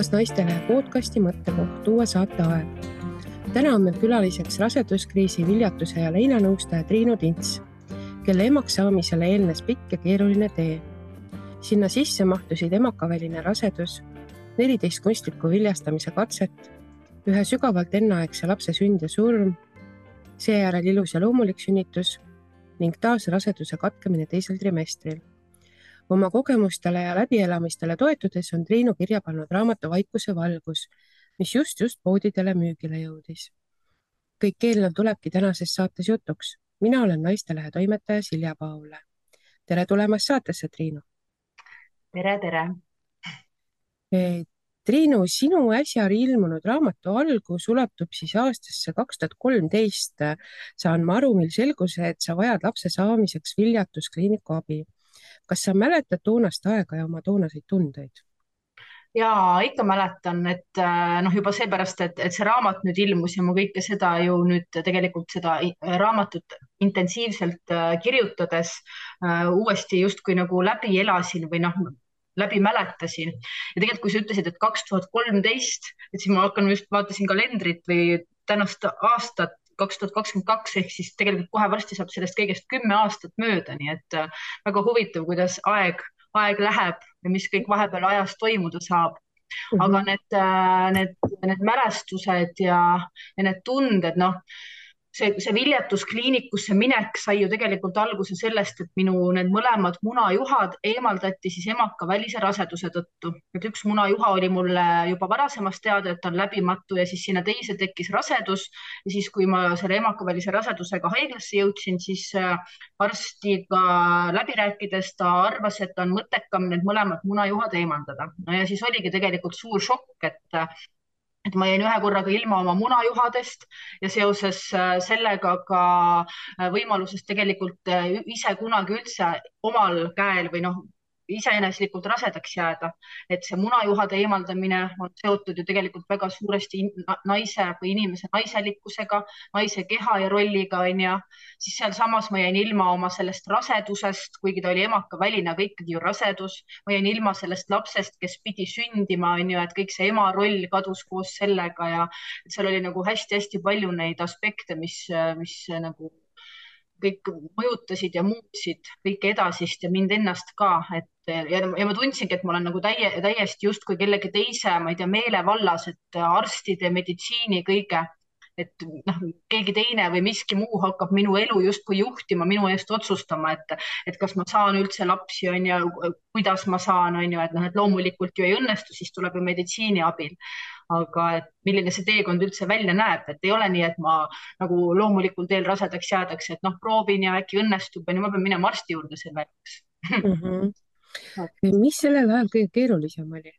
taas Naistelehe podcasti mõttekoht uue saate aeg. Täna on meil külaliseks raseduskriisi, viljatuse ja leinanõustaja Triinu Tints, kelle emaks saamisele eelnes pikk ja keeruline tee. Sinna sisse mahtusid emakaväline rasedus, 14 kunstliku viljastamise katset, ühe sügavalt enneaegse lapse sünd ja surm, seejärel ilus ja loomulik sünnitus ning taas raseduse katkemine teisel trimestril. Oma kogemustele ja läbielamistele toetudes on Triinu kirja pannud raamatu Vaikuse valgus, mis just poodidele müügile jõudis. Kõik eelnev tulebki tänases saates jutuks. Mina olen Naistelehe toimetaja Silja Paule. Tere tulemast saatesse, Triinu. Tere. Triinu, sinu äsja ilmunud raamatu algus ulatub siis aastasse 2013. Saan ma aru, mil selgus, et sa vajad lapse saamiseks viljatuskliiniku abi. Kas sa mäletad toonast aega ja oma toonaseid tundeid? Jaa, ikka mäletan, et juba seepärast, et see raamat nüüd ilmus ja ma kõike seda ju nüüd tegelikult seda raamatut intensiivselt kirjutades uuesti justkui nagu läbi elasin või läbi mäletasin. Ja tegelikult, kui sa ütlesid, et 2013, et siis ma vaatasin kalendrit või tänast aastat 2022 ehk siis tegelikult kohe varsti saab sellest kõigest 10 aastat mööda, nii et väga huvitav, kuidas aeg läheb ja mis kõik vahepeal ajas toimuda saab. Aga need mälestused ja need tunded, see viljatuskliinikusse minek sai ju tegelikult alguse sellest, et minu need mõlemad munajuhad eemaldati siis emakavälise raseduse tõttu. Et üks munajuha oli mulle juba varasemast teada, et ta on läbimatu ja siis sinna teise tekkis rasedus. Ja siis, kui ma selle emakavälise rasedusega haiglasse jõudsin, siis arstiga läbi rääkides ta arvas, et on mõttekam need mõlemad munajuhad eemaldada. Ja siis oligi tegelikult suur šokk, et ma jäin ühe korraga ilma oma munajuhadest ja seoses sellega ka võimalusest tegelikult ise kunagi üldse omal käel või iseeneslikult rasedaks jääda. Et see munajuhade eemaldamine on seotud ju tegelikult väga suuresti naise või inimese naiselikkusega, naise keha ja rolliga, siis seal samas ma jäin ilma oma sellest rasedusest, kuigi ta oli emakaväline, aga ikkagi ju rasedus. Ma jäin ilma sellest lapsest, kes pidi sündima, et kõik see ema roll kadus koos sellega ja seal oli nagu hästi-hästi palju neid aspekte, mis nagu kõik mõjutasid ja muutsid kõike edasist ja mind ennast ka. Ja ma tundsingi, et ma olen nagu täiesti justkui kellegi teise, ma ei tea, meelevallas, et arstide, meditsiini, kõige, et keegi teine või miski muu hakkab minu elu justkui juhtima, minu eest otsustama, et kas ma saan üldse lapsi, kuidas ma saan, et loomulikult ju ei õnnestu, siis tuleb ju meditsiini abil. Aga et milline see teekond üldse välja näeb, et ei ole nii, et ma nagu loomulikul teel rasedaks jäädaks, et proovin ja äkki õnnestub, ma pean minema arsti juurde selle jaoks. Mis sellel ajal kõige keerulisem oli?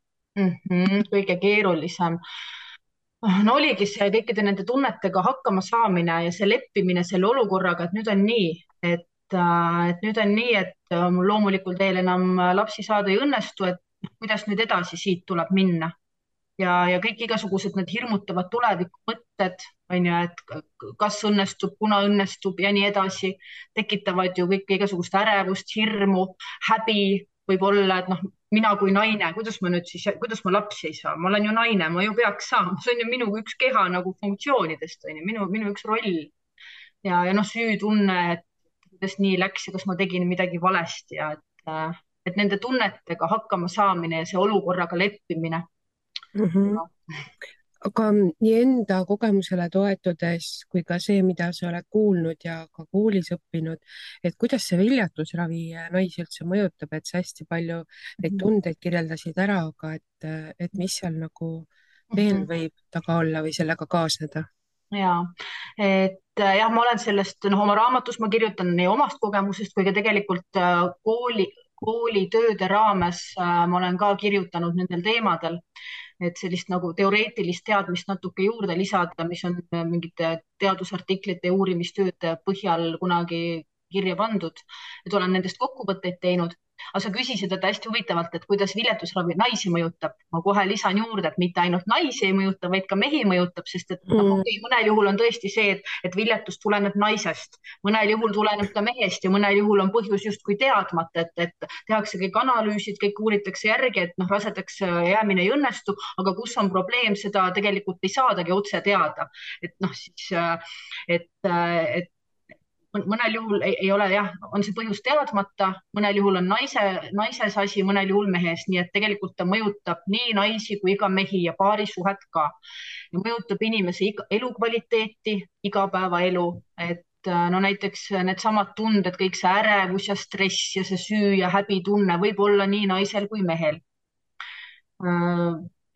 Kõige keerulisem? Oligi see kõikide nende tunnetega hakkama saamine ja see leppimine selle olukorraga, et nüüd on nii, et mul loomulikul teel enam lapsi saada ei õnnestu, et kuidas nüüd edasi siit tuleb minna. Ja kõik igasugused need hirmutavad tulevikumõtted, et kas õnnestub, kuna õnnestub ja nii edasi, tekitavad ju kõik igasugust ärevust, hirmu, häbi võib-olla, et mina kui naine, kuidas ma lapsi ei saa, ma olen ju naine, ma ju peaks saama, see on ju minu üks keha nagu funktsioonidest, minu üks roll ja süütunne, et kuidas nii läks ja kas ma tegin midagi valesti ja et nende tunnetega hakkama saamine ja see olukorraga leppimine. Aga nii enda kogemusele toetudes kui ka see, mida sa oled kuulnud ja ka koolis õppinud, et kuidas see viljatusravi naisi üldse mõjutab, et sa hästi palju neid tundeid kirjeldasid ära, aga et mis seal nagu veel võib taga olla või sellega kaasneda? Ja, ma olen sellest, oma raamatus ma kirjutan nii omast kogemusest kui ka tegelikult koolitööde raames ma olen ka kirjutanud nendel teemadel, et sellist nagu teoreetilist teadmist natuke juurde lisada, mis on mingite teadusartiklite ja uurimistööde põhjal kunagi kirja pandud, et olen nendest kokkuvõtteid teinud. aga sa küsisid, et hästi huvitavalt, et kuidas viljatusravi naisi mõjutab. Ma kohe lisan juurde, et mitte ainult naisi ei mõjuta, vaid ka mehi mõjutab, sest et mõnel juhul on tõesti see, et viljatus tuleneb naisest, mõnel juhul tuleneb ta mehest ja mõnel juhul on põhjus justkui teadmata, et tehakse kõik analüüsid, kõik uuritakse järgi, et rasedaks jäämine ei õnnestu, aga kus on probleem, seda tegelikult ei saadagi otse teada. Et siis, et mõnel juhul ei ole jah, on see põhjus teadmata, mõnel juhul on naises asi, mõnel juhul mehes, nii et tegelikult ta mõjutab nii naisi kui ka mehi ja paarisuhet ka. Ja mõjutab inimese elukvaliteeti, igapäevaelu, et näiteks needsamad tunded, kõik see ärevus ja stress ja see süü ja häbitunne võib olla nii naisel kui mehel.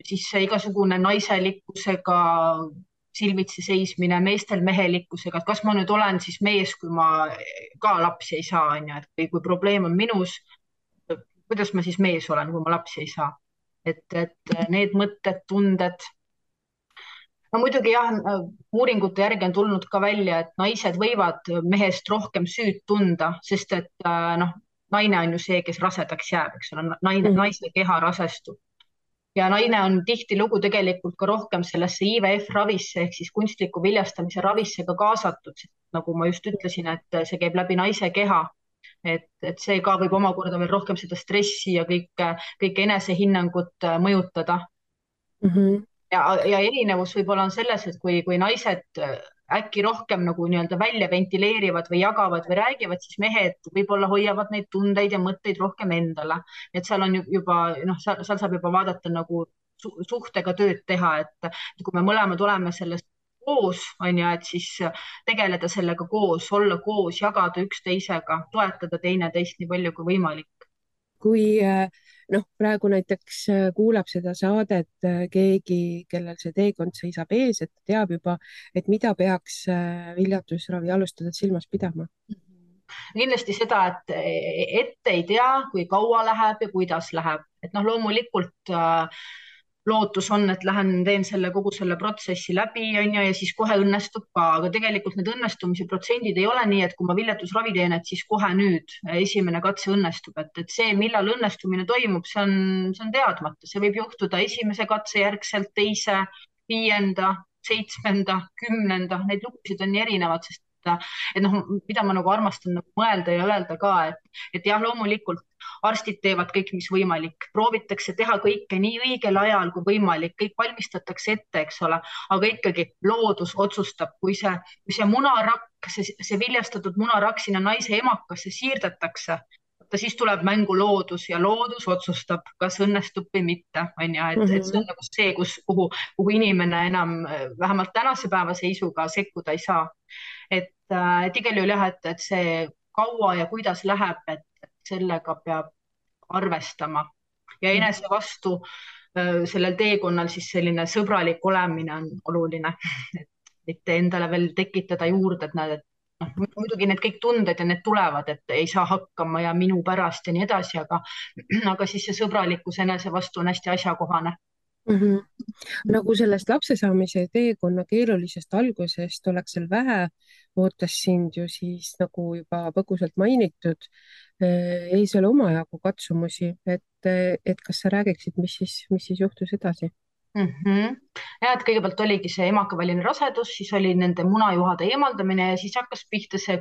Siis see igasugune naiselikkusega silmitsi seismine, meestel mehelikkusega, et kas ma nüüd olen siis mees, kui ma ka lapsi ei saa, on ju, et kui probleem on minus, kuidas ma siis mees olen, kui ma lapsi ei saa. Et need mõtted, tunded. No muidugi jah, uuringute järgi on tulnud ka välja, et naised võivad mehest rohkem süüd tunda, sest et naine on ju see, kes rasedaks jääb, eks ole, naise keha rasestub. Ja naine on tihtilugu tegelikult ka rohkem sellesse IVF-ravisse ehk siis kunstliku viljastamise ravisse ka kaasatud, nagu ma just ütlesin, et see käib läbi naise keha, et see ka võib omakorda veel rohkem seda stressi ja kõik enesehinnangut mõjutada. Ja erinevus võib-olla on selles, et kui naised äkki rohkem nagu nii-öelda välja ventileerivad või jagavad või räägivad, siis mehed võib-olla hoiavad neid tundeid ja mõtteid rohkem endale. Et seal on juba, seal saab juba vaadata nagu suhtega tööd teha, et kui me mõlemad oleme sellest koos, on ju, et siis tegeleda sellega koos, olla koos, jagada üksteisega, toetada teineteist nii palju kui võimalik. Kui praegu näiteks kuulab seda saadet keegi, kellel see teekond seisab ees, et teab juba, et mida peaks viljatusravi alustades silmas pidama? Kindlasti seda, et ette ei tea, kui kaua läheb ja kuidas läheb. Et loomulikult lootus on, et lähen teen kogu selle protsessi läbi, on ju, ja siis kohe õnnestub ka, aga tegelikult need õnnestumise protsendid ei ole nii, et kui ma viljatusravi teen, et siis kohe nüüd esimene katse õnnestub, et see, millal õnnestumine toimub, see on teadmata, see võib juhtuda esimese katse järgselt, teise, 5., 7., 10., neid lugusid on nii erinevad, sest mida ma nagu armastan mõelda ja öelda ka, et jah, loomulikult arstid teevad kõik, mis võimalik, proovitakse teha kõike nii õigel ajal kui võimalik, kõik valmistatakse ette, eks ole, aga ikkagi loodus otsustab, kui see munarakk, see viljastatud munarakk sinna naise emakasse siirdetakse, siis tuleb mängu loodus ja loodus otsustab, kas õnnestub või mitte, on ju, et see on nagu see, kuhu inimene enam vähemalt tänase päeva seisuga sekkuda ei saa. Et igal juhul jah, et see kaua ja kuidas läheb, et sellega peab arvestama ja enese vastu sellel teekonnal siis selline sõbralik olemine on oluline, et mitte endale veel tekitada juurde, et näed, et muidugi need kõik tunded ja need tulevad, et ei saa hakkama ja minu pärast ja nii edasi, aga siis see sõbralikkus enese vastu on hästi asjakohane. Nagu sellest lapse saamise teekonna keerulisest algusest oleks seal vähe, ootas sind ju siis nagu juba põgusalt mainitud ees veel omajagu katsumusi, et kas sa räägiksid, mis siis juhtus edasi? Ja, et kõigepealt oligi see emakaväline rasedus, siis oli nende munajuhade eemaldamine ja siis hakkas pihta see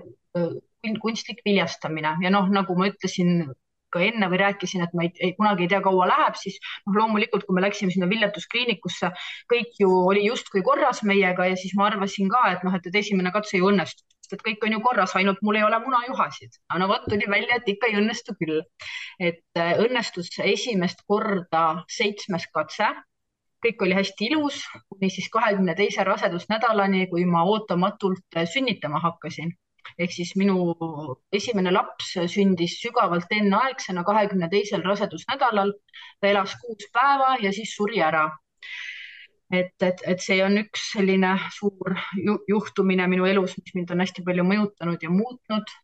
kunstlik viljastamine ja nagu ma ütlesin ka enne või rääkisin, et ma kunagi ei tea, kaua läheb, siis loomulikult, kui me läksime sinna viljetuskliinikusse, kõik ju oli justkui korras meiega ja siis ma arvasin ka, et esimene katse ju õnnestub, sest et kõik on ju korras, ainult mul ei ole munajuhasid. No vot, tuli välja, et ikka ei õnnestu küll. Et õnnestus esimest korda 7. katse, kõik oli hästi ilus, kuni siis 22. rasedusnädalani, kui ma ootamatult sünnitama hakkasin. Ehk siis minu esimene laps sündis sügavalt enneaegsena 22. rasedusnädalal, ta elas 6 päeva ja siis suri ära. Et see on üks selline suur juhtumine minu elus, mis mind on hästi palju mõjutanud ja muutnud.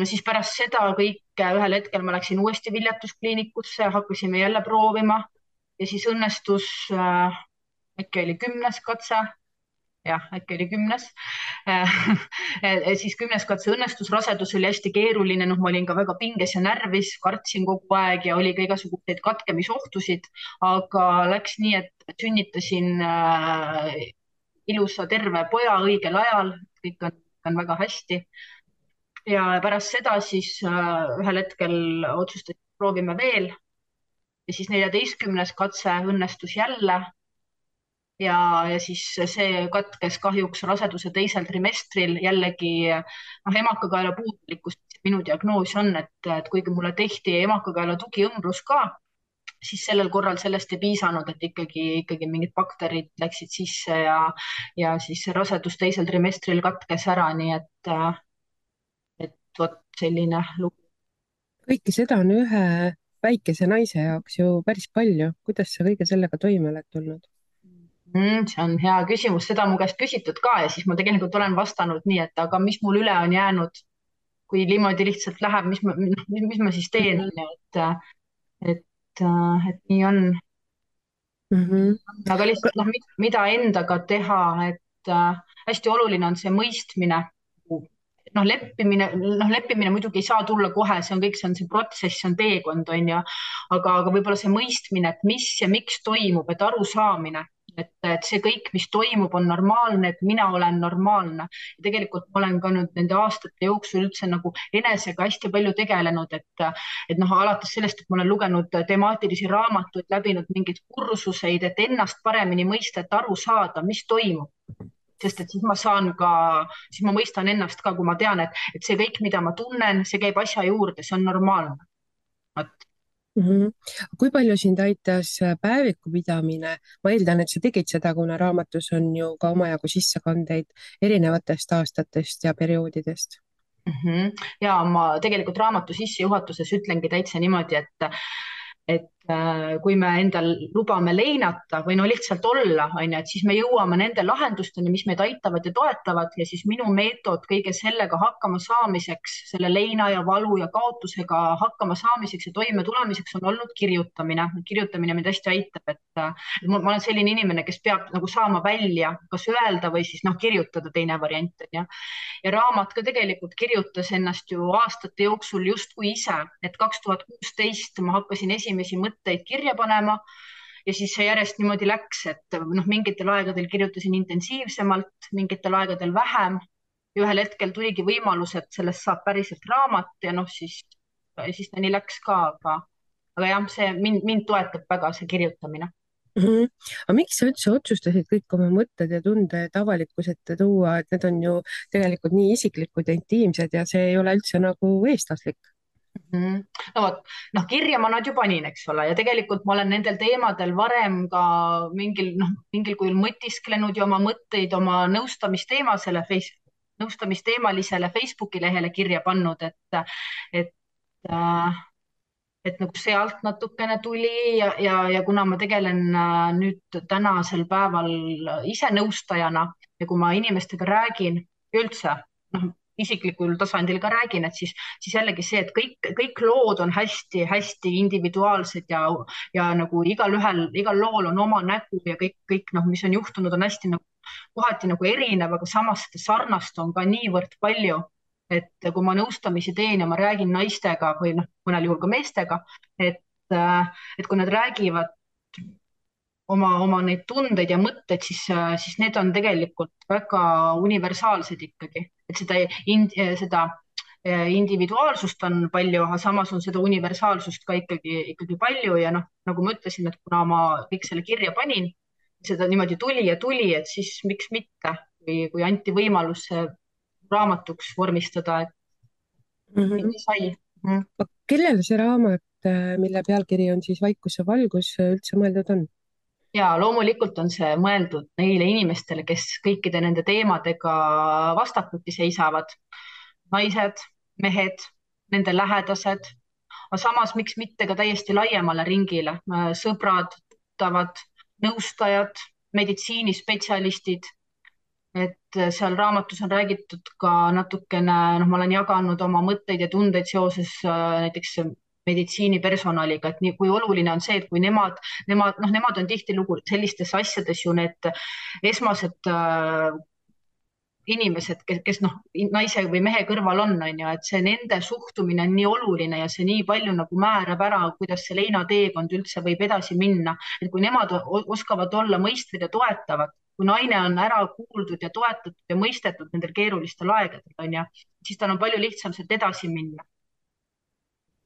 Siis pärast seda kõike ühel hetkel ma läksin uuesti viljetuskliinikusse, hakkasime jälle proovima ja siis õnnestus, äkki oli 10. katse jah, äkki oli 10. Siis 10. katse õnnestus, rasedus oli hästi keeruline, noh, ma olin ka väga pinges ja närvis, kartsin kogu aeg ja oli ka igasuguseid katkemisohtusid, aga läks nii, et sünnitasin ilusa terve poja õigel ajal, kõik on väga hästi. Ja pärast seda siis ühel hetkel otsustasin, proovime veel ja siis 14. katse õnnestus jälle ja siis see katkes kahjuks raseduse teisel trimestril jällegi noh, emakakaela puudulikkus. minu diagnoos on, et kuigi mulle tehti emakakaela tugiõmblus ka, siis sellel korral sellest ei piisanud, et ikkagi mingid bakterid läksid sisse ja siis rasedus teisel trimestril katkes ära, nii et vot selline lugu. kõike seda on ühe väikese naise jaoks ju päris palju. kuidas sa kõige sellega toime oled tulnud? See on hea küsimus, seda mu käest küsitud ka ja siis ma tegelikult olen vastanud nii, et aga mis mul üle on jäänud, kui niimoodi lihtsalt läheb, mis ma siis teen, onju, et nii on. Mhm. Aga lihtsalt noh, mida endaga teha, et hästi oluline on see mõistmine. Leppimine muidugi ei saa tulla kohe, see on see protsess, see on teekond, onju. Aga võib-olla see mõistmine, et mis ja miks toimub, et arusaamine, et see kõik, mis toimub, on normaalne, et mina olen normaalne. Ja tegelikult ma olen ka nüüd nende aastate jooksul üldse nagu enesega hästi palju tegelenud, et noh, alates sellest, et ma olen lugenud temaatilisi raamatuid, läbinud mingeid kursuseid, et ennast paremini mõista, et aru saada, mis toimub. Sest et siis ma mõistan ennast ka, kui ma tean, et see kõik, mida ma tunnen, see käib asja juurde, see on normaalne. Mhm. Kui palju sind aitas päeviku pidamine? Ma eeldan, et sa tegid seda, kuna raamatus on ju ka omajagu sissekandeid erinevatest aastatest ja perioodidest. Ja ma tegelikult raamatu sissejuhatuses ütlengi täitsa niimoodi, et kui me endal lubame leinata või no lihtsalt olla, onju, et siis me jõuame nende lahendusteni, mis meid aitavad ja toetavad ja siis minu meetod kõige sellega hakkama saamiseks, selle leina ja valu ja kaotusega hakkama saamiseks ja toime tulemiseks on olnud kirjutamine. kirjutamine mind hästi aitab, et ma olen selline inimene, kes peab nagu saama välja, kas öelda või siis noh, kirjutada, teine variant on ju. Ja raamat ka tegelikult kirjutas ennast ju aastate jooksul justkui ise, et 2016 ma hakkasin esimesi mõtteid kirja panema ja siis see järjest niimoodi läks, et noh, mingitel aegadel kirjutasin intensiivsemalt, mingitel aegadel vähem ja ühel hetkel tuligi võimalus, et sellest saab päriselt raamat ja noh, siis ta nii läks ka, aga jah, see mind toetab väga see kirjutamine. Aga miks sa üldse otsustasid kõik oma mõtted ja tunded avalikkuse ette tuua, et need on ju tegelikult nii isiklikud ja intiimsed ja see ei ole üldse nagu eestlaslik? No vot, noh, kirja ma nad ju panin, eks ole, ja tegelikult ma olen nendel teemadel varem ka mingil kujul mõtisklenud ja oma mõtteid oma nõustamisteemalisele Facebooki lehele kirja pannud, et nagu sealt natukene tuli ja kuna ma tegelen nüüd tänasel päeval ise nõustajana ja kui ma inimestega räägin üldse, noh, isiklikul tasandil ka räägin, et siis jällegi see, et kõik lood on hästi-hästi individuaalsed ja nagu igal lool on oma nägu ja kõik noh, mis on juhtunud, on hästi nagu kohati nagu erinev, aga samas seda sarnast on ka niivõrd palju. Et kui ma nõustamisi teen ja ma räägin naistega või noh, mõnel juhul ka meestega, et kui nad räägivad oma neid tundeid ja mõtteid, siis need on tegelikult väga universaalsed ikkagi, et seda individuaalsust on palju, aga samas on seda universaalsust ka ikkagi palju ja noh, nagu ma ütlesin, et kuna ma kõik selle kirja panin, seda niimoodi tuli, et siis miks mitte, kui anti võimalus raamatuks vormistada, et sai. Kellele see raamat, mille pealkiri on siis Vaikuse valgus, üldse mõeldud on? Ja loomulikult on see mõeldud neile inimestele, kes kõikide nende teemadega vastakuti seisavad. Naised, mehed, nende lähedased, aga samas miks mitte ka täiesti laiemale ringile, sõbrad, tuttavad, nõustajad, meditsiinispetsialistid. Et seal raamatus on räägitud ka natukene, noh, ma olen jaganud oma mõtteid ja tundeid seoses näiteks meditsiinipersonaliga, et nii kui oluline on see, et kui nemad on tihtilugu sellistes asjades ju need esmased inimesed, kes noh, naise või mehe kõrval on ju, et see nende suhtumine on nii oluline ja see nii palju nagu määrab ära, kuidas see leinateekond üldse võib edasi minna. Et kui nemad oskavad olla mõistvad ja toetavad, kui naine on ära kuuldud ja toetatud ja mõistetud nendel keerulistel aegadel, on ju, siis tal on palju lihtsam sealt edasi minna.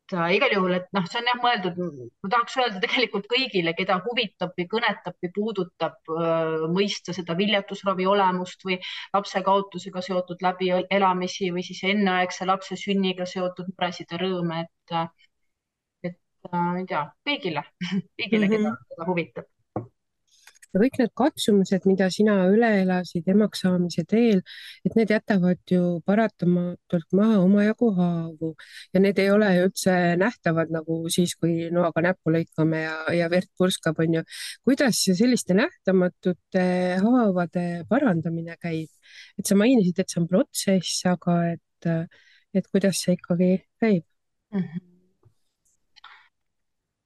Igal juhul, et noh, see on jah mõeldud, ma tahaks öelda tegelikult kõigile, keda huvitab või kõnetab või puudutab mõista seda viljatusravi olemust või lapse kaotusega seotud läbielamisi või siis enneaegse lapse sünniga seotud muresid ja rõõme, et ma ei tea, kõigile, kõigile, -hmm. keda huvitab. Ja kõik need katsumused, mida sina üle elasid emaks saamise teel, et need jätavad ju paratamatult maha omajagu haavu ja need ei ole ju üldse nähtavad nagu siis, kui noaga näppu lõikame ja verd purskab, on ju. Kuidas selliste nähtamatute haavade parandamine käib? Et sa mainisid, et see on protsess, aga et kuidas see ikkagi käib?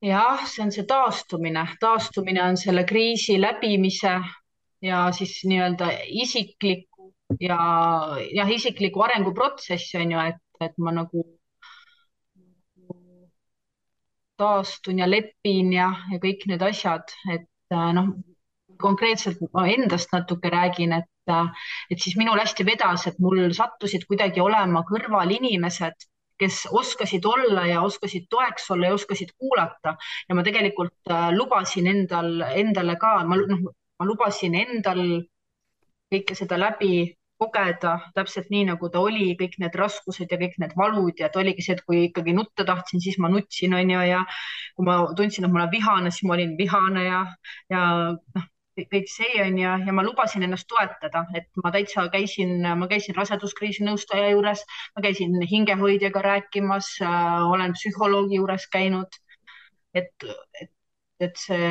Jah, see on see taastumine. Taastumine on selle kriisi läbimise ja siis nii-öelda isikliku arenguprotsess on ju, et ma nagu taastun ja lepin ja kõik need asjad, et noh, konkreetselt ma endast natuke räägin, et siis minul hästi vedas, et mul sattusid kuidagi olema kõrval inimesed, kes oskasid olla ja oskasid toeks olla ja oskasid kuulata ja ma tegelikult lubasin endale ka, ma lubasin endal kõike seda läbi kogeda täpselt nii, nagu ta oli, kõik need raskused ja kõik need valud ja et oligi see, et kui ikkagi nutta tahtsin, siis ma nutsin, on ju, ja kui ma tundsin, et ma olen vihane, siis ma olin vihane ja noh, kõik see on ja ma lubasin ennast toetada, et ma käisin raseduskriisi nõustaja juures, ma käisin hingehoidjaga rääkimas, olen psühholoogi juures käinud, et, et, et see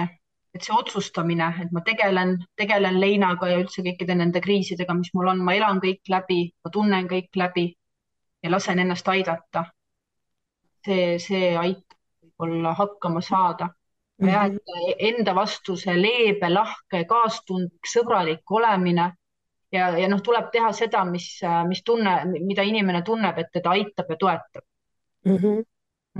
otsustamine, et ma tegelen leinaga ja üldse kõikide nende kriisidega, mis mul on, ma elan kõik läbi, ma tunnen kõik läbi ja lasen ennast aidata. See aitab võib-olla hakkama saada. Ja et enda vastu see leebe, lahke, kaastundlik, sõbralik olemine ja noh, tuleb teha seda, mida inimene tunneb, et teda aitab ja toetab.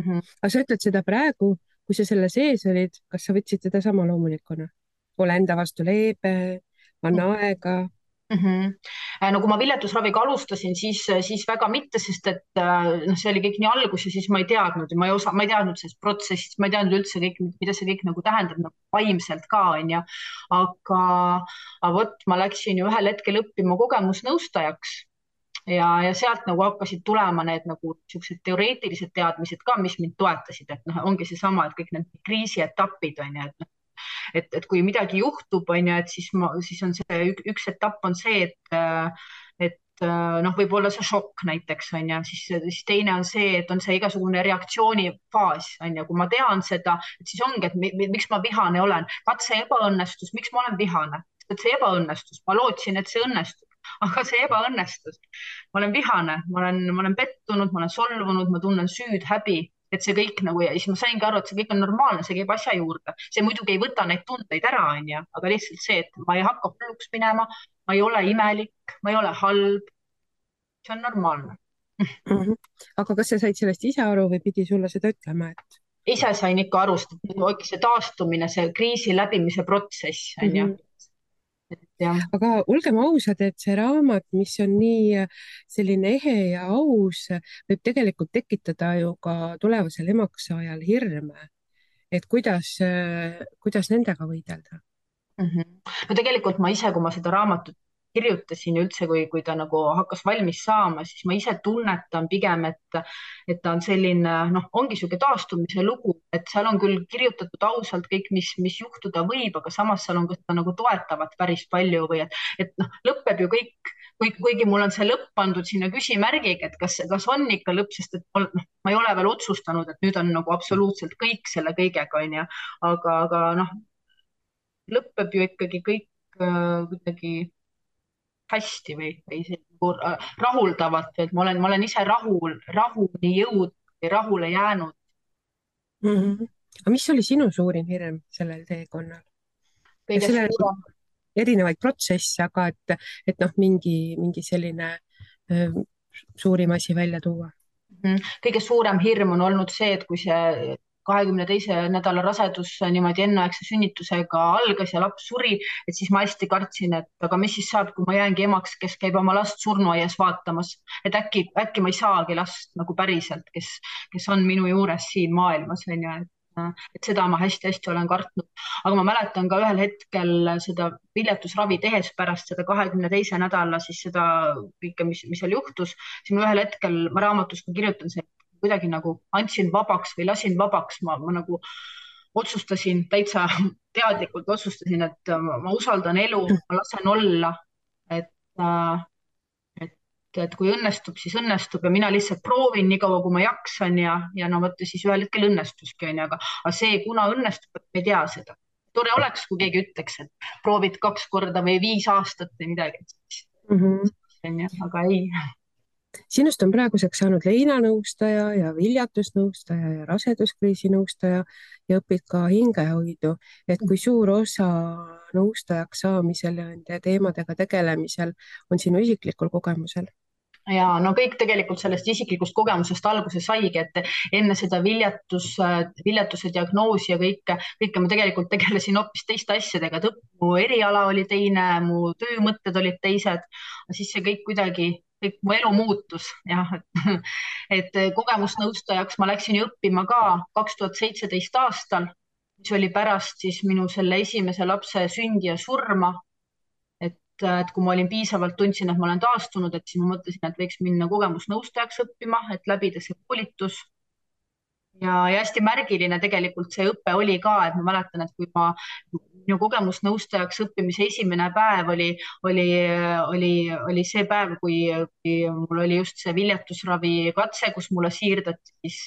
Aga sa ütled seda praegu, kui sa selle sees olid, kas sa võtsid seda sama loomulikuna? Ole enda vastu leebe, anna aega. No kui ma viljatusraviga alustasin, siis väga mitte, sest et noh, see oli kõik nii algus ja siis ma ei teadnud, ma ei teadnud sellest protsessist, ma ei teadnud üldse kõik, mida see kõik nagu tähendab nagu vaimselt ka, onju. Aga vot ma läksin ju ühel hetkel õppima kogemusnõustajaks ja sealt nagu hakkasid tulema need nagu siuksed teoreetilised teadmised ka, mis mind toetasid, et noh, ongi seesama, et kõik need kriisietapid on ju, et kui midagi juhtub, on ju, et siis on see üks etapp on see, et noh, võib-olla see šokk näiteks on ju, siis teine on see, et on see igasugune reaktsioonifaas on ju, kui ma tean seda, et siis ongi, et miks ma vihane olen, katse ebaõnnestus, miks ma olen vihane, et see ebaõnnestus, ma lootsin, et see õnnestub, aga see ebaõnnestus, ma olen vihane, ma olen pettunud, ma olen solvunud, ma tunnen süüd, häbi, et see kõik nagu ja siis ma saingi aru, et see kõik on normaalne, see käib asja juurde, see muidugi ei võta neid tundeid ära, onju, aga lihtsalt see, et ma ei hakka hulluks minema, ma ei ole imelik, ma ei ole halb. See on normaalne. Aga kas sa said sellest ise aru või pidi sulle seda ütlema, et? Ise sain ikka aru, see taastumine, see kriisi läbimise protsess, onju. Aga olgem ausad, et see raamat, mis on nii selline ehe ja aus, võib tegelikult tekitada ju ka tulevasel emakssaajal hirme, et kuidas nendega võidelda. No tegelikult ma ise, kui ma seda raamatut kirjutasin ja üldse, kui ta nagu hakkas valmis saama, siis ma ise tunnetan pigem, et ta on selline, noh, ongi niisugune taastumise lugu, et seal on küll kirjutatud ausalt kõik, mis juhtuda võib, aga samas seal on ka seda nagu toetavat päris palju või et noh, lõpeb ju kõik, kuigi mul on see lõpp pandud sinna küsimärgiga, et kas on ikka lõpp, sest et ma ei ole veel otsustanud, et nüüd on nagu absoluutselt kõik selle kõigega, onju, aga noh, lõpeb ju ikkagi kõik kuidagi hästi või rahuldavalt, et ma olen ise rahuni jõudnud või rahule jäänud Aga mis oli sinu suurim hirm sellel teekonnal? kõige Sellel on suurem erinevaid protsesse, aga et noh, mingi selline öö, suurim asi välja tuua. kõige suurem hirm on olnud see, et kui see 22. nädala rasedus niimoodi enneaegse sünnitusega algas ja laps suri, et siis ma hästi kartsin, et aga mis siis saab, kui ma jäängi emaks, kes käib oma last surnuaias vaatamas, et äkki ma ei saagi last nagu päriselt, kes on minu juures siin maailmas, on ju, et seda ma hästi-hästi olen kartnud. aga ma mäletan ka ühel hetkel seda viljatusravi tehes pärast seda 22. nädala siis seda kõike, mis seal juhtus, siis ma ühel hetkel, ma raamatus ka kirjutan see, kuidagi nagu andsin vabaks või lasin vabaks, ma nagu otsustasin täitsa teadlikult otsustasin, et ma usaldan elu, ma lasen olla, et, et, et kui õnnestub, siis õnnestub ja mina lihtsalt proovin nii kaua, kui ma jaksan ja no vot siis ühel hetkel õnnestuski onju, aga see, kuna õnnestub, me ei tea seda. tore oleks, kui keegi ütleks, et proovid 2 korda või 5 aastat või midagi, onju, aga ei. Sinust on praeguseks saanud leinanõustaja ja viljatusnõustaja ja raseduskriisi nõustaja ja õpid ka hingehoidu. Et kui suur osa nõustajaks saamisel ja nende teemadega tegelemisel on sinu isiklikul kogemusel? ja no kõik tegelikult sellest isiklikust kogemusest alguse saigi, et enne seda viljatuse diagnoosi ja kõike ma tegelikult tegelesin hoopis teiste asjadega, et mu eriala oli teine, mu töömõtted olid teised, siis see kõik kuidagi, kõik mu elu muutus jah, et kogemusnõustajaks ma läksin ju õppima ka 2017. aastal, mis oli pärast siis minu selle esimese lapse sündi ja surma. Et kui ma olin piisavalt, tundsin, et ma olen taastunud, et siis ma mõtlesin, et võiks minna kogemusnõustajaks õppima, et läbida see koolitus. ja hästi märgiline tegelikult see õpe oli ka, et ma mäletan, et kui minu kogemusnõustajaks õppimise esimene päev oli see päev, kui mul oli just see viljatusravi katse, kus mulle siirdati siis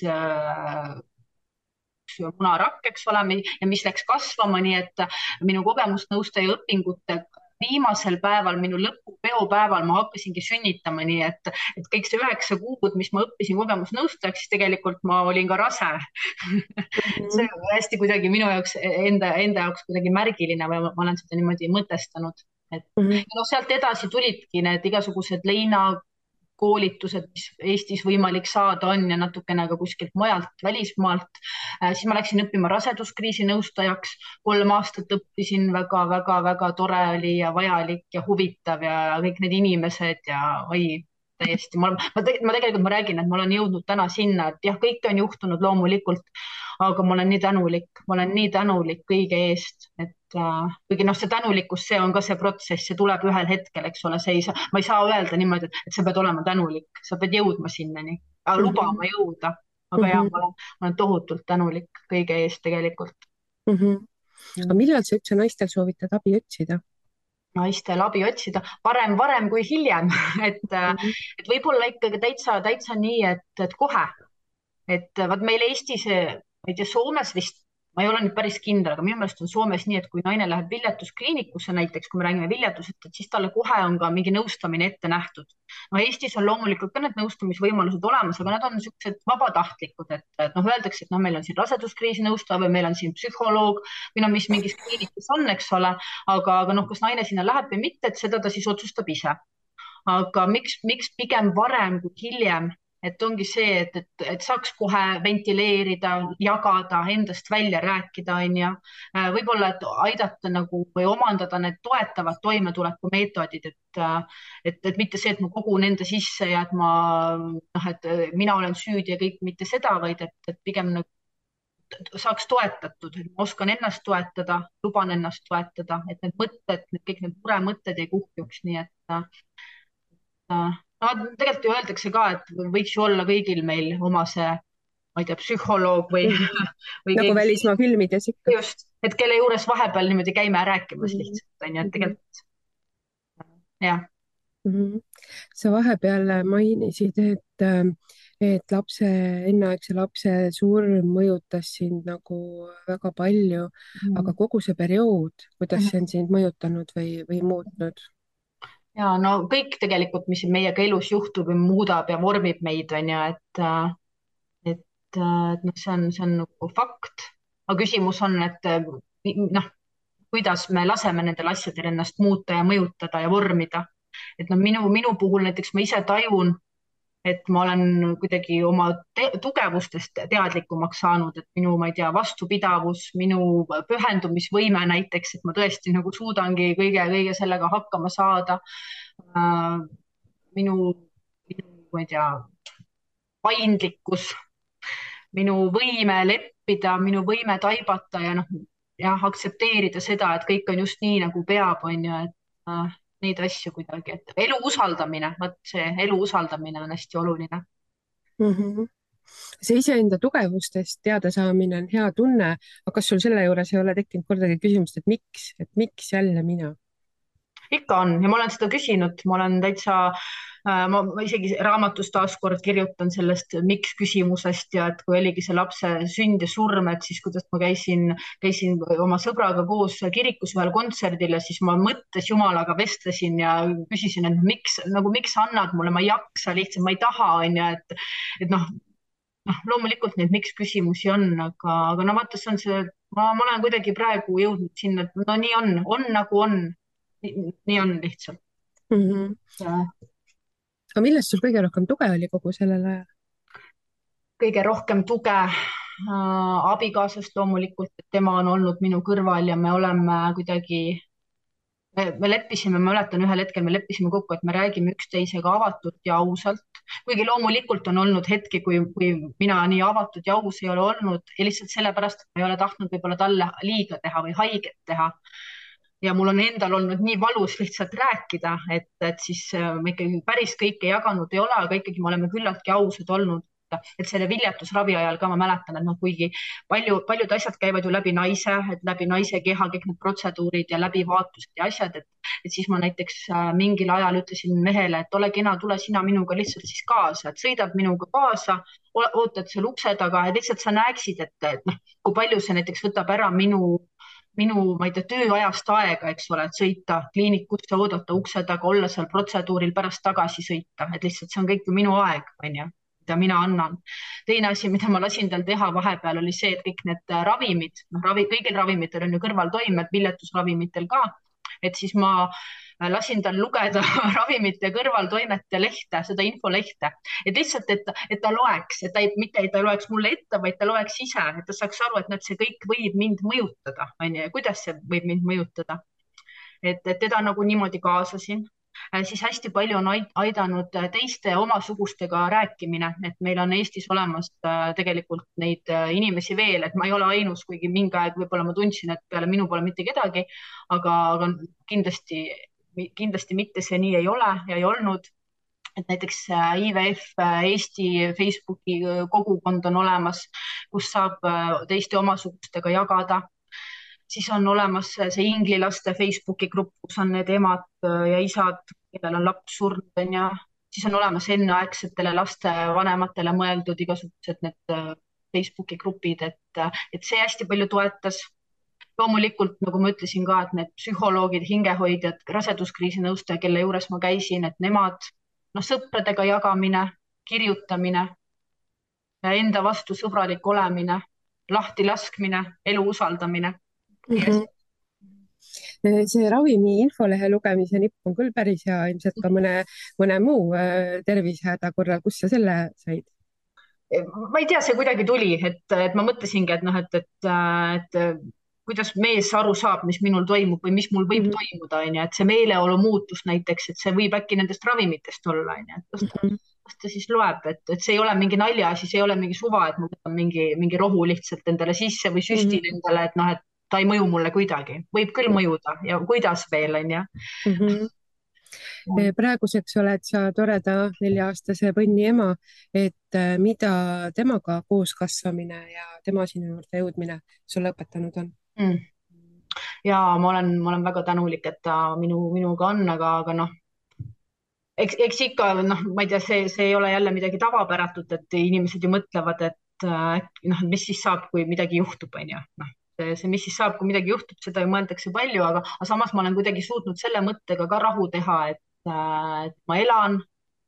munarakk, eks ole, ja mis läks kasvama, nii et minu kogemusnõustaja õpingute viimasel päeval, minu lõpupeopäeval ma hakkasingi sünnitama, nii et kõik see 9 kuud, mis ma õppisin kogemusnõustajaks, siis tegelikult ma olin ka rase. See on hästi kuidagi minu jaoks enda jaoks kuidagi märgiline või ma olen seda niimoodi mõtestanud. Et no sealt edasi tulidki need igasugused leinakoolitused, mis Eestis võimalik saada on ja natukene ka kuskilt mujalt, välismaalt. Siis ma läksin õppima raseduskriisi nõustajaks, 3 aastat õppisin, väga-väga-väga tore oli ja vajalik ja huvitav ja kõik need inimesed ja oi, täiesti. Ma räägin, et ma olen jõudnud täna sinna, et jah, kõike on juhtunud loomulikult, aga ma olen nii tänulik kõige eest, et kuigi noh, see tänulikkus, see on ka see protsess, see tuleb ühel hetkel, eks ole, ma ei saa öelda niimoodi, et sa pead olema tänulik, sa pead jõudma sinnani, lubama jõuda, aga jah, ma olen tohutult tänulik kõige eest tegelikult. Aga millal sa üldse naistel soovitad abi otsida? Naistel abi otsida varem kui hiljem, et võib-olla ikkagi täitsa nii, et kohe, et vaat meil Eestis, ma ei tea, Soomes vist, ma ei ole nüüd päris kindel, aga minu meelest on Soomes nii, et kui naine läheb viljatuskliinikusse näiteks, kui me räägime viljatusest, et siis talle kohe on ka mingi nõustamine ette nähtud. No Eestis on loomulikult ka need nõustamisvõimalused olemas, aga nad on niisugused vabatahtlikud, et noh, öeldakse, et noh, meil on siin raseduskriisi nõustaja või meil on siin psühholoog või no mis mingis kliinikus on, eks ole, aga noh, kas naine sinna läheb või mitte, et seda ta siis otsustab ise. Aga miks pigem varem kui hiljem? Et ongi see, et saaks kohe ventileerida, jagada, endast välja rääkida, on ju. Võib-olla, et aidata nagu või omandada need toetavad toimetulekumeetodid, et mitte see, et ma kogun enda sisse ja et mina olen süüdi ja kõik, mitte seda, vaid et pigem nagu saaks toetatud, et ma oskan ennast toetada, luban ennast toetada, et need mõtted, kõik need muremõtted ei kuhjuks, nii et no tegelikult ju öeldakse ka, et võiks ju olla kõigil meil oma see, ma ei tea, psühholoog või nagu keegi, välismaa filmides ikka. Just, et kelle juures vahepeal niimoodi käime rääkimas lihtsalt, on ju, et tegelikult jah. Sa vahepeal mainisid, et enneaegse lapse surm mõjutas sind nagu väga palju, aga kogu see periood, kuidas see on sind mõjutanud või muutnud? Ja no kõik tegelikult, mis meiega elus juhtub ja muudab ja vormib meid, on ju, et noh, see on nagu fakt. aga küsimus on, et noh, kuidas me laseme nendel asjadel ennast muuta ja mõjutada ja vormida. et noh, minu puhul näiteks ma ise tajun, et ma olen kuidagi oma tugevustest teadlikumaks saanud, et minu, ma ei tea, vastupidavus, minu pühendumisvõime näiteks, et ma tõesti nagu suudangi kõige sellega hakkama saada. minu, ma ei tea, paindlikkus, minu võime leppida, minu võime taibata ja noh, jah, aktsepteerida seda, et kõik on just nii, nagu peab, on ju, et neid asju kuidagi, et elu usaldamine, vot see elu usaldamine on hästi oluline. -hmm. see iseenda tugevustest teadasaamine on hea tunne, aga kas sul selle juures ei ole tekkinud kordagi küsimust, et miks jälle mina? ikka on ja ma olen seda küsinud, ma olen täitsa, ma isegi raamatus taaskord kirjutan sellest miks küsimusest ja et kui oligi see lapse sünd ja surm, et siis kuidas ma käisin oma sõbraga koos kirikus ühel kontserdil ja siis ma mõttes Jumalaga vestlesin ja küsisin, et miks sa annad mulle, ma ei jaksa lihtsalt, ma ei taha, on ju, et noh, loomulikult neid miks küsimusi on, aga no vaata, see on see, ma olen kuidagi praegu jõudnud sinna, et no nii on nagu on. Nii on lihtsalt. Aga millest sul kõige rohkem tuge oli kogu sellel ajal? Kõige rohkem tuge abikaasast loomulikult, et tema on olnud minu kõrval ja me oleme kuidagi, me leppisime, ma mäletan ühel hetkel me leppisime kokku, et me räägime üksteisega avatult ja ausalt, kuigi loomulikult on olnud hetki, kui mina nii avatud ja aus ei ole olnud ja lihtsalt sellepärast, et ma ei ole tahtnud võib-olla talle liiga teha või haiget teha. Ja mul on endal olnud nii valus lihtsalt rääkida, et siis me ikkagi päris kõike jaganud ei ole, aga ikkagi me oleme küllaltki ausad olnud. Et selle viljatusravi ajal ka ma mäletan, et noh, kuigi paljud asjad käivad ju läbi naise keha, kõik need protseduurid ja läbivaatused ja asjad, et siis ma näiteks mingil ajal ütlesin mehele, et ole kena, tule sina minuga lihtsalt siis kaasa, et sõidad minuga kaasa, ootad seal ukse taga, et lihtsalt sa näeksid, et noh, kui palju see näiteks võtab ära minu, ma ei tea, tööajast aega, eks ole, et sõita kliinikusse, oodata ukse taga, olla seal protseduuril, pärast tagasi sõita, et lihtsalt see on kõik ju minu aeg, on ju, mida mina annan. Teine asi, mida ma lasin tal teha vahepeal, oli see, et kõik need ravimid, kõigil ravimitel on ju kõrvaltoimed, viljatusravimitel ka, et siis ma lasin tal lugeda ravimite kõrvaltoimete lehte, seda infolehte, et lihtsalt, et ta loeks, et mitte ei ta loeks mulle ette, vaid ta loeks ise, et ta saaks aru, et see kõik võib mind mõjutada, on ju, ja kuidas see võib mind mõjutada. Et teda nagu niimoodi kaasasin. Siis hästi palju on aidanud teiste omasugustega rääkimine, et meil on Eestis olemas tegelikult neid inimesi veel, et ma ei ole ainus, kuigi mingi aeg võib-olla ma tundsin, et peale minu pole mitte kedagi, aga kindlasti mitte see nii ei ole ja ei olnud. Et näiteks IVF Eesti Facebooki kogukond on olemas, kus saab teiste omasugustega jagada. Siis on olemas see inglilaste Facebooki grupp, kus on need emad ja isad, kellel on laps surnud, ja siis on olemas enneaegsetele laste vanematele mõeldud igasugused need Facebooki grupid, et see hästi palju toetas. Loomulikult, nagu ma ütlesin ka, et need psühholoogid, hingehoidjad, raseduskriisi nõustaja, kelle juures ma käisin, et nemad, sõpradega jagamine, kirjutamine, enda vastu sõbralik olemine, lahti laskmine, elu usaldamine. See ravimi infolehe lugemise nipp on küll päris hea, ilmselt ka mõne muu tervisehäda korral. Kus sa selle said? Ma ei tea, see kuidagi tuli, et ma mõtlesingi, et kuidas mees aru saab, mis minul toimub või mis mul võib toimuda, et see meeleolu muutus näiteks, et see võib äkki nendest ravimitest olla, et kas ta siis loeb, et see ei ole mingi naljaasi, see ei ole mingi suva, et ma võtan mingi rohu lihtsalt endale sisse või süstin endale, et noh, et ta ei mõju mulle kuidagi, võib küll mõjuda ja kuidas veel, on ju. Praeguseks oled sa toreda 4-aastase põnni ema, et mida temaga koos kasvamine ja tema sinu juurde jõudmine sulle õpetanud on? Ja ma olen väga tänulik, et ta minuga on, aga noh, eks ikka, noh, ma ei tea, see ei ole jälle midagi tavapäratut, et inimesed ju mõtlevad, et noh, mis siis saab, kui midagi juhtub, on ju, noh. See, mis siis saab, kui midagi juhtub, seda ju mõeldakse palju, aga samas ma olen kuidagi suutnud selle mõttega ka rahu teha, et ma elan,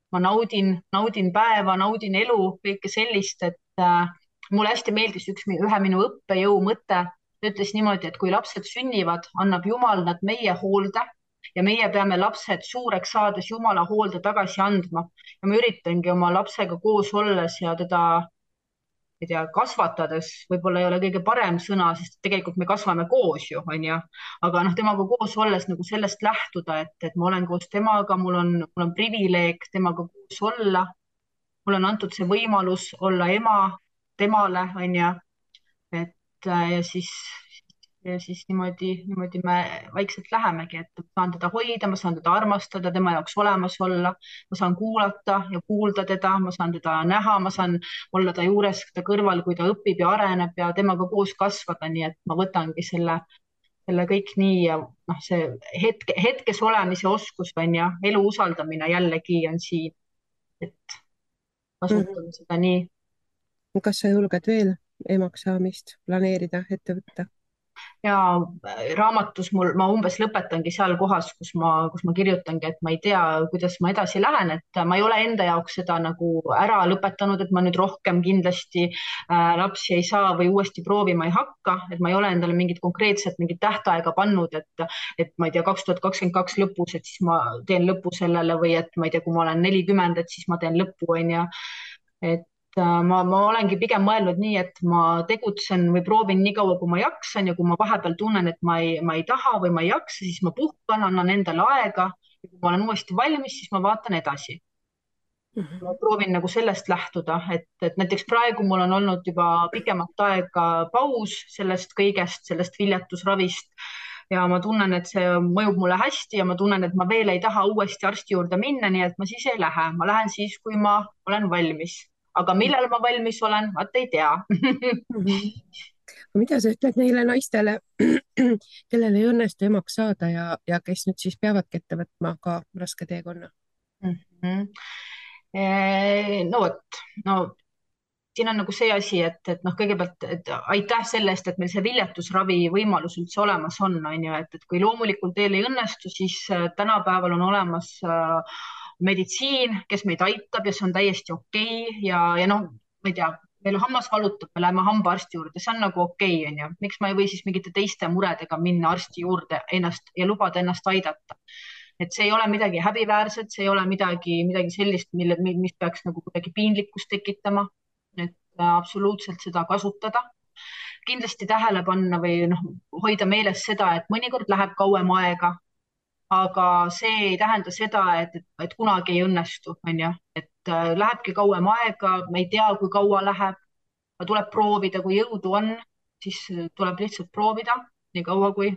ma naudin päeva, naudin elu, kõike sellist, mulle hästi meeldis ühe minu õppejõu mõte. Ta ütles niimoodi, et kui lapsed sünnivad, annab Jumal nad meie hoolde ja meie peame lapsed suureks saades Jumala hoolde tagasi andma. Ja ma üritangi oma lapsega koos olles ja teda, ei tea, kasvatades, võib-olla ei ole kõige parem sõna, sest tegelikult me kasvame koos ju, onju. Aga noh, temaga koos olles nagu sellest lähtuda, et ma olen koos temaga, mul on privileeg temaga koos olla. Mulle on antud see võimalus olla ema temale, onju. Et ja siis niimoodi me vaikselt lähemegi, et ma saan teda hoida, ma saan teda armastada, tema jaoks olemas olla, ma saan kuulata ja kuulda teda, ma saan teda näha, ma saan olla ta juures, ta kõrval, kui ta õpib ja areneb ja temaga koos kasvada, nii et ma võtangi selle kõik nii ja noh, see hetkes olemise oskus on ja elu usaldamine jällegi on siin, et kasutan seda nii. Kas sa julged veel emaks saamist planeerida, ette võtta? Ja raamatus ma umbes lõpetangi seal kohas, kus ma kirjutangi, et ma ei tea, kuidas ma edasi lähen, et ma ei ole enda jaoks seda nagu ära lõpetanud, et ma nüüd rohkem kindlasti lapsi ei saa või uuesti proovima ei hakka, et ma ei ole endale mingit tähtaega pannud, et ma ei tea, 2022 lõpus, et siis ma teen lõpu sellele või et ma ei tea, kui ma olen 40, et siis ma teen lõpu, onju. Et ma olengi pigem mõelnud nii, et ma tegutsen või proovin nii kaua, kui ma jaksan ja kui ma vahepeal tunnen, et ma ei taha või ma ei jaksa, siis ma puhkan, annan endale aega ja kui ma olen uuesti valmis, siis ma vaatan edasi. Ma proovin nagu sellest lähtuda, et näiteks praegu mul on olnud juba pikemat aega paus sellest kõigest, sellest viljatusravist ja ma tunnen, et see mõjub mulle hästi ja ma tunnen, et ma veel ei taha uuesti arsti juurde minna, nii et ma siis ei lähe, ma lähen siis, kui ma olen valmis, aga millal ma valmis olen, vaat ei tea. Mida sa ütled neile naistele, kellel ei õnnestu emaks saada ja kes nüüd siis peavadki ette võtma ka raske teekonna? No vot, no siin on nagu see asi, et noh, kõigepealt et aitäh selle eest, et meil see viljatusravi võimalus üldse olemas on ju, et kui loomulikul teel ei õnnestu, siis tänapäeval on olemas meditsiin, kes meid aitab ja see on täiesti okei ja noh, ma ei tea, meil hammas valutab, me läheme hambaarsti juurde, see on nagu okei, onju. Miks ma ei või siis mingite teiste muredega minna arsti juurde ennast ja lubada ennast aidata? Et see ei ole midagi häbiväärset, see ei ole midagi sellist, mis peaks nagu kuidagi piinlikkust tekitama. Et absoluutselt seda kasutada. Kindlasti tähele panna või noh, hoida meeles seda, et mõnikord läheb kauem aega, aga see ei tähenda seda, et kunagi ei õnnestu, onju. Et lähebki kauem aega, me ei tea, kui kaua läheb, aga tuleb proovida, kui jõudu on, siis tuleb lihtsalt proovida nii kaua, kui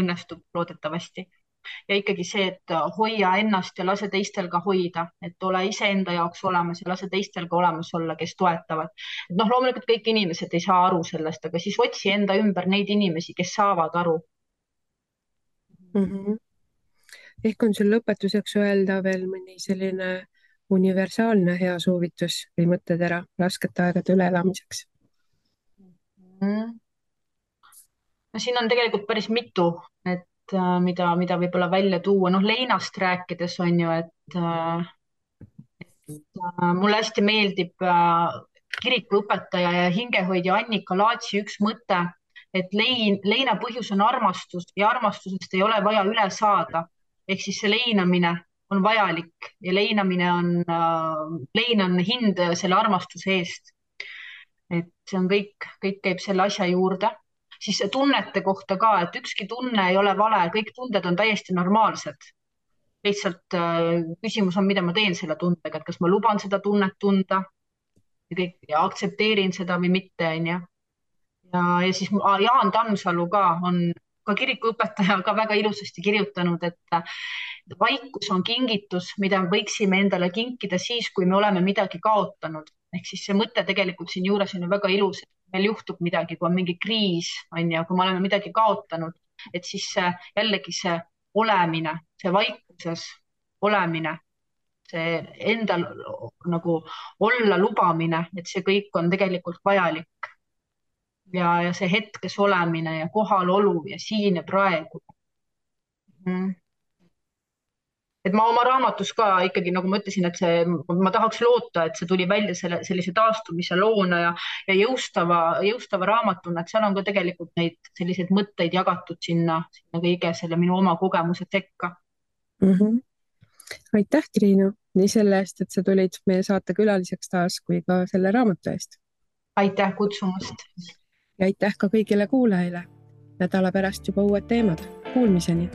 õnnestub loodetavasti. Ja ikkagi see, et hoia ennast ja lase teistel ka hoida, et ole iseenda jaoks olemas ja lase teistel ka olemas olla, kes toetavad. Et noh, loomulikult kõik inimesed ei saa aru sellest, aga siis otsi enda ümber neid inimesi, kes saavad aru. Ehk on sul lõpetuseks öelda veel mõni selline universaalne hea soovitus või mõttetera raskete aegade üleelamiseks? No siin on tegelikult päris mitu, et mida võib-olla välja tuua. Noh, leinast rääkides on ju, et mulle hästi meeldib kirikuõpetaja ja hingehoidja Annika Laatsi üks mõte, et leina põhjus on armastus ja armastusest ei ole vaja üle saada. Ehk siis see leinamine on vajalik ja lein on hind selle armastuse eest. Et see on kõik käib selle asja juurde. Siis tunnete kohta ka, et ükski tunne ei ole vale, kõik tunded on täiesti normaalsed. Lihtsalt küsimus on, mida ma teen selle tundega, et kas ma luban seda tunnet tunda ja aktsepteerin seda või mitte, onju. Ja siis Jaan Tammsalu ka on ka kirikuõpetaja ka väga ilusasti kirjutanud, et vaikus on kingitus, mida võiksime endale kinkida siis, kui me oleme midagi kaotanud. Ehk siis see mõte tegelikult siin juures on ju väga ilus, et meil juhtub midagi, kui on mingi kriis, on ju, kui me oleme midagi kaotanud, et siis jällegi see olemine, see vaikuses olemine, see endal nagu olla lubamine, et see kõik on tegelikult vajalik. Ja see hetkes olemine ja kohalolu ja siin ja praegu. et ma oma raamatus ka ikkagi, nagu ma ütlesin, et ma tahaks loota, et see tuli välja sellise taastumise loona ja jõustava raamatuna, et seal on ka tegelikult neid selliseid mõtteid jagatud sinna kõige selle minu oma kogemuse sekka. Aitäh, Triinu, nii selle eest, et sa tulid meie saate külaliseks taas, kui ka selle raamatu eest. Aitäh kutsumast. Ja aitäh ka kõigile kuulajale. Nädala pärast juba uued teemad. Kuulmiseni!